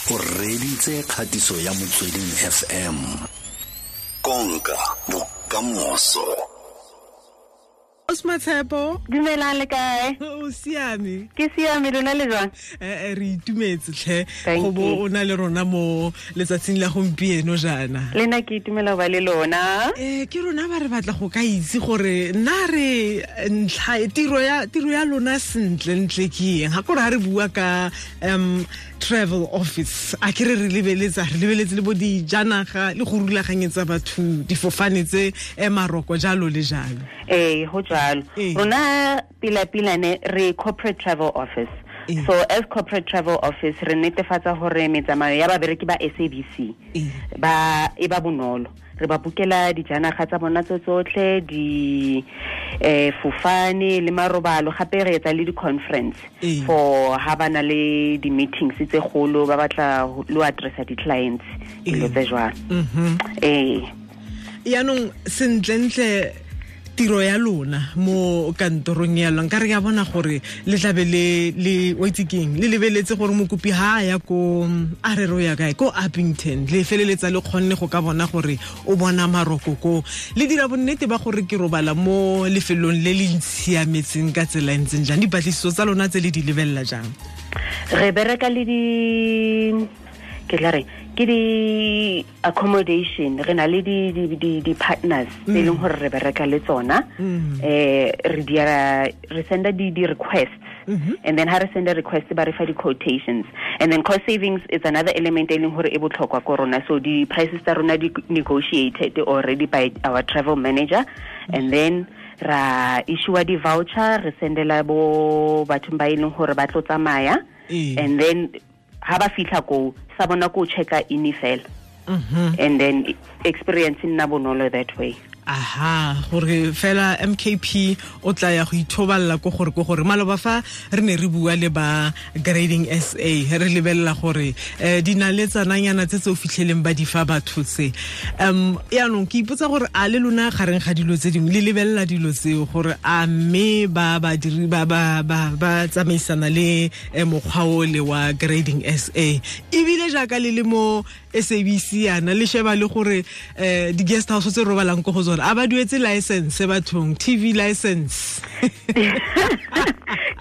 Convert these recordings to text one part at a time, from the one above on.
O reditse kgatiso ya Motsweding FM. Konka bokamoso. Osmatshepo. Dumelang, le kae? O siame? Ke siame, lona le jwang? Re itumetse tlhe Thank go bo you. o na le rona mo letsatsing la gompieno jaana. Le nna ke itumela go ba le lona. Ke rona ba re batla go ka itse gore nna re ntlha e, tiro ya lona sentle ntle ke eng, ga kore ga re bua ka travel office, a ke re re lebeletsa, re lebeletse le bo dijanaga le go rulaganyetsa batho difofane tse maroko, jalo le jalo. Ee, go jalo. Rona pila-pila ne re corporate travel office. So as corporate travel office re netefatsa gore metsamao ya babereki ba SABC ba e ba bonolo. Re ba bukela dijanaga tsa bona tse tsotlhe, di fofane le marobalo, gape re etsa le di-conference for ha ba na le di-meetings tse golo, ba batla lo addressa di-clients, dilo tse jwalo. Ee. Yaanong sentlentle tiro ya lona mo kantorong ya lona, nka re ya bona gore le tlabe le o itse keng, le lebeletse gore mokopi ha a ya ko, a re re o ya kae, ko Upington, le feleletsa le kgonne go ka bona gore o bona maroko ko, le dira bonnete ba gore ke robala mo lefelong le le ntshiametseng ka tsela e ntseng jang? Dipatlisiso tsa lona tse le di lebelela jang? Re bereka le di, ke tla reng, ke di accommodation, re na le di partners tse e leng gore re bereka le tsona. Re dira, re senda di requests and then ha re senda request, ba re fa di quotations, and then cost savings is another element e leng gore e botlhokwa ko rona. So di prices tsa rona di negotiated already by our travel manager, and then ra issue di voucher, re sendela bo bathong ba e leng gore ba tlo tsamaya. And then ha ba fitlha ko sa bona ko checka in fela and then experience e nna bonolo that way. Aha, gore fela MKP o tla ya go ithobalela ko gore maloba fa re ne re bua le ba Grading SA, re lebelela gore dinaletsananyana tse tse o fitlheleng ba di fa batho tse. Yaanong ke ipotsa gore a le lona gareng ga dilo tse dingwe le lebelela dilo tseo, gore a mme ba badiri ba tsamaisana le mokgwa o le wa Grading SA, ebile jaaka le le mo SABC yana, le sheba le gore di-guest house tse robalang ko go tsone a ba duetse license bathong, TV license?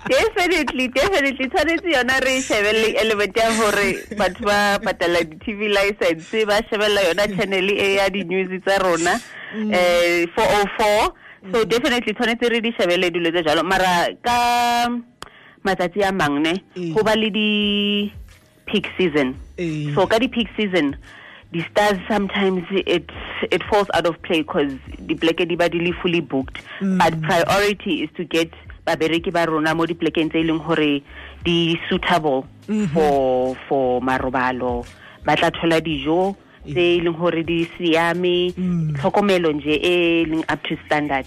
Definitely, tshwanetse yona re shebelle element ya gore batho ba patala di-TV license, ba shebella yona channel e ya di-news tsa rona, 404. So definitely tshwanetse re di shebelle dilo tse jalo, mara ka matsatsi a mang ne go ba le di peak season. So ka di peak season, the stars, sometimes it falls out of play because the pleke di ba di le fully booked, but priority is to get babereki ba rona mo diplekeng tse e leng gore di suitable for marobalo, ba tla thola dijo tse e leng gore di siame, tlhokomelo nje e leng up to standard.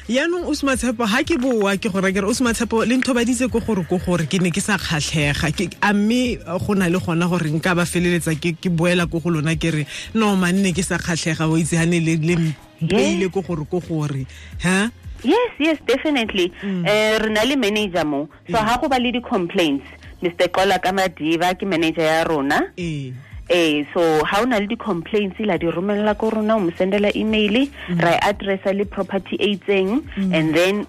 Yaanong o Sematshepo, ga ke boa ke gore ke re o Sematshepo le nthobaditse ko gore ke ne ke sa kgatlhega. A mme go na le gona gore nka ba feleletsa ke boela ko go lona ke re, no manne, ke sa kgatlhega, o itse gane le mpeile ko gore ha? Yes, definitely. Re na le manager mo, so ha go ba le di-complaints, Mr Kola ka Madiba ke manager ya rona. So ha o na le di-complaints, la di romella ko rona, o mo sendela email, ra e addressa le property e itseng, and then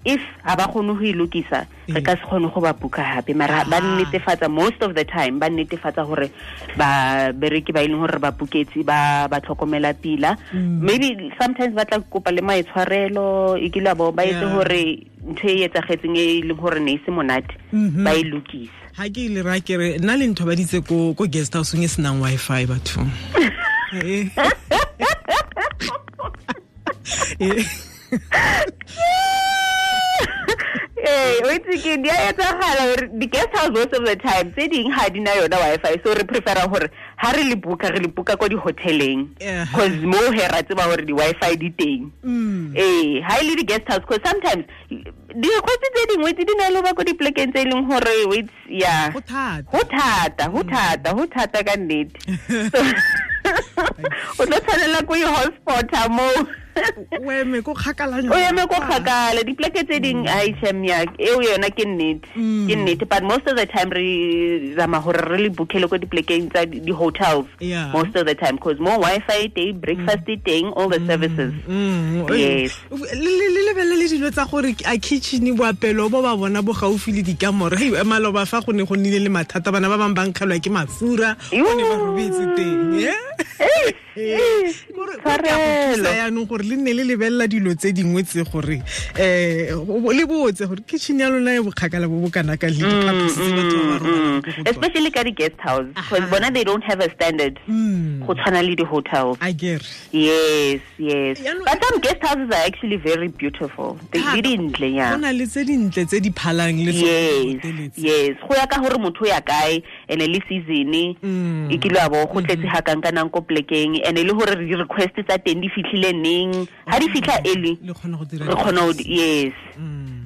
if ha ba kgone go e lokisa, re ka se kgone go ba buka hape, mara ba netefatsa, most of the time ba netefatsa gore ba bereki ba e leng gore ba buketse ba tlhokomela pila. Maybe sometimes ba tla kopa le maitshwarelo, e kile bo ba etse gore ntho e etsagetseng e leng gore ne e se monate, ba e lokisa. Ha ke ile ra ke re nna le nthobaditse ko guest house e senang Wi-Fi bathong. Ee, o itse ke di a etsagala gore di-guest house most of the time tse ding ga di na yona Wi-Fi, so re prefera gore ha re le booka, re le booka ko di-hoteleng, cause mo he ra tseba gore di-Wi-Fi di teng. Ee, ha e le di-guest house, cause sometimes di-request tse dingwe tse di na le ba ko diplekeng tse e leng gore it's, yeah. Go thata. Go thata, go thata, go thata ka nnete. So o tlo tshwanela ko i-hotspota moo. O eme ko kgakala. O eme ko kgakala. Dipleke tse ding a ichemia eo yona ke nnete. Ke nnete, but most of the time re zama hore re le bookele ko diplekeng tsa di hotels. Most of the time because more Wi-Fi teng, breakfast teng, all the services. Yes. Le lebelle le dilo tsa gore a kitchen boapelo bo ba bona bo gaufi le dikamore. Hei maloba fa go ne go nnile le mathata bana ba bang ba nkgelwa ke mafura go ne ba robetse teng. Gore yaanong gore le nne le lebelela dilo tse dingwe tse gore le botse gore kitchen ya lona e bokgakala bo bo kana ka le diphaposi tse batho ba ba robalang ko go tsona. Especially ka di-guest house, because bona they don't have a standard go tshwana le di-hotels. I get. Yes, yes. But some guest houses are actually very beautiful. They dintle, yeah. Go na le tse dintle tse di phalang le tsone. Yes, go ya ka gore motho ya kae ene le season e kile a bo go tletse ha kang ka nang ko plekeng ene le gore di request tsa teng di fitlhile neng ha di fitlha early le kgona go dira re kgona go yes.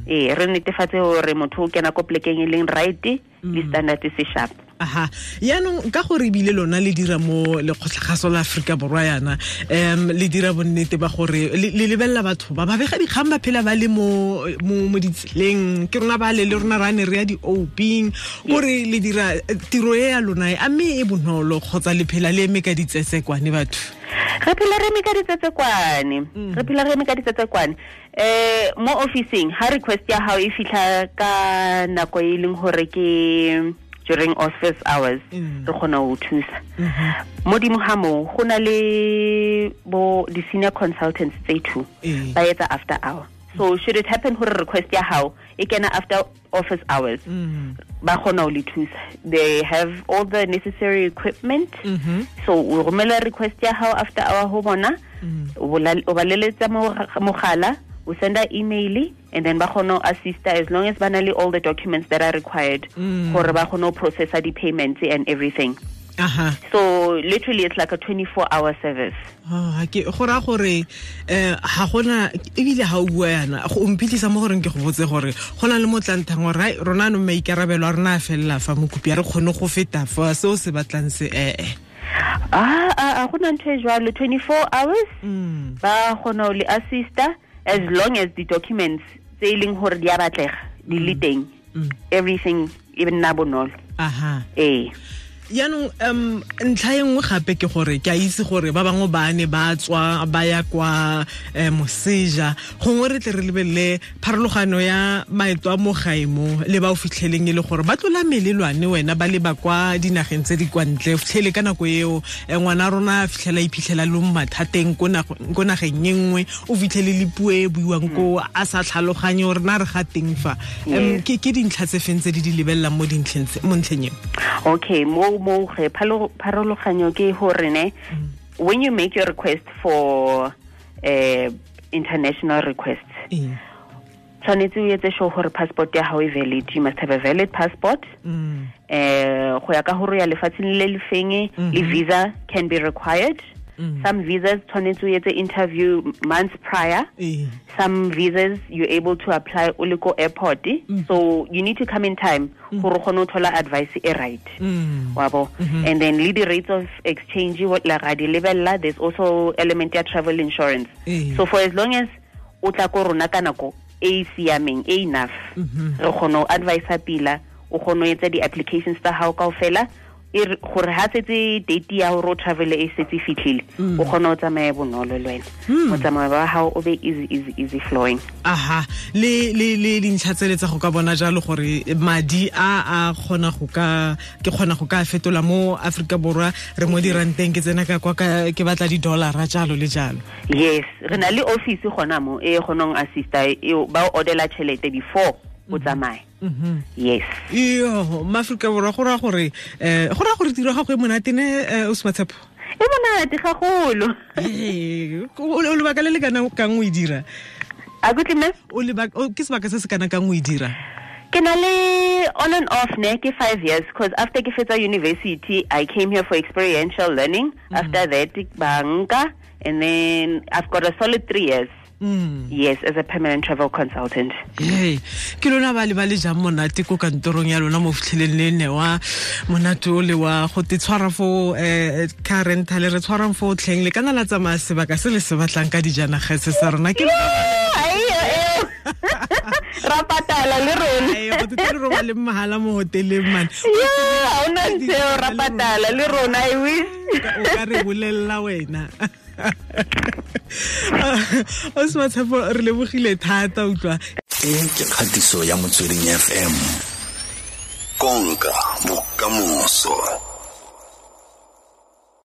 Re netefatse gore motho o kena ko plekeng e leng right le standard se sharp. Aha, yaanong ka gore ebile lona le dira mo lekgotlagaso la Aforika Borwa yana le dira bonnete ba gore le lebelela batho ba bega dikgang ba phela ba le mo ditseleng ke rona ba le rona ra ne re ya di-oping gore le dira tiro e ya lona a mme e bonolo kgotsa le phela le eme ka ditsesekwane batho? Re phela re eme ka ditsetsekwane. Re phela re eme ka ditsetsekwane. Mo officing ha request ya hao e fitlha ka nako e leng hore ke during office hours re kgona ho thusa. Modimo ha mo go na le bo di senior consultants tse two ba etsa after hour. So should it happen gore request ya hao e kena after office hours ba kgona ho le thusa. They have all the necessary equipment. So o romela request ya hao after hour ho bona, o ba leletsa mogala, o senda email, and then ba kgona ho assista as long as ba na le all the documents that are required gore ba kgone ho processa di-payments and everything. Aha. So literally it's like a 24-hour service. Ah, ke go ra gore ha gona ebile ha o bua yana go mphitlisa mo goreng ke go botse gore go na le motlanthang gore rona no maikarabelo a rona a fella fa mokopi a re kgone go feta fa seo se batlang se A gona ntho e jwalo 24 hours ba kgona ho le assista as long as the documents tse e leng hore di a batlega di le teng. Everything e nna bonolo. Aha. Yaanong ntlha e nngwe gape ke gore ke a itse gore ba bangwe ba ne ba tswa ba ya kwa moseja gongwe re tle re lebelele pharologano ya maeto a mo gae mo le ba o fitlheleng e le gore ba tlola melelwane wena ba leba kwa dinageng tse di kwa ntle fitlhele ka nako eo ngwana rona a fitlhela iphitlhela le mo mathateng ko nageng e nngwe o fitlhele le puo e buiwang ko a sa tlhaloganye gore na re ga teng fa. Ke dintlha tse feng tse di di lebelelang mo ntlheng eo? Okay, mo pharologanyo ke hore ne when you make your request for international requests tshwanetse o etse sure gore passport ya hao e valid. You must have a valid passport. Go ya ka hore ya lefatsheng le le feng le visa can be required. Some visas tshwanetse o etse interview months prior. Some visas you're able to apply o le ko airport. So you need to come in time gore o kgone ho thola advice e right. Wabo. And then le the rates of exchange what la ga di lebella, there's also element ya travel insurance. So for as long as o tla ko rona ka nako e siameng e enough re kgone ho advise pila, o kgone ho etsa di applications tsa hao kaofela gore ha setse date ya hore o travel e setse fitlhile o kgona ho tsamaya bonolo le wena. Motsamao wa hao o be easy easy easy flowing. Aha, le dintlha tsele tsa go ka bona jalo gore madi a kgona go ka ke kgona go ka fetola mo Afrika Borwa re mo diranteng ke tsena ka kwa ke batla di dollar jalo le jalo. Yes, re na le office gona mo e kgonong assista e ba o ordela tšhelete before o tsamaye. Yes. Iyo, Maafrika Borwa go ra gore tiro ga go e monate ne o Sematshepo. E monate gagolo. O lebaka le le kana kang o e dira? A kutlwe mme? O lebaka ke sebaka se se kana kang o e dira? Ke na le on and off ne ke 5 years because after ke fetsa university I came here for experiential learning. After that banka and then I've got a solid 3 years. Yes, as a permanent travel consultant. Hey, ke lona ba le ba le jang monate ko kantorong ya lona mo fitlheleng le newa monate o le wa go te tshwara fo car rental re tshwarang fo tlheng le kana la tsamaya sebaka se le se batlang ka dijanaga se sa rona ke ra patala le rona. Ai, go te re robale mahala mo hoteleng man. Yeah, ha ona ntho ra patala le rona, I wish. O ka re bolella wena. O se Matshepo, re lebogile thata utlwa. E ke kgatiso ya Motsweding FM. Konka bokamoso.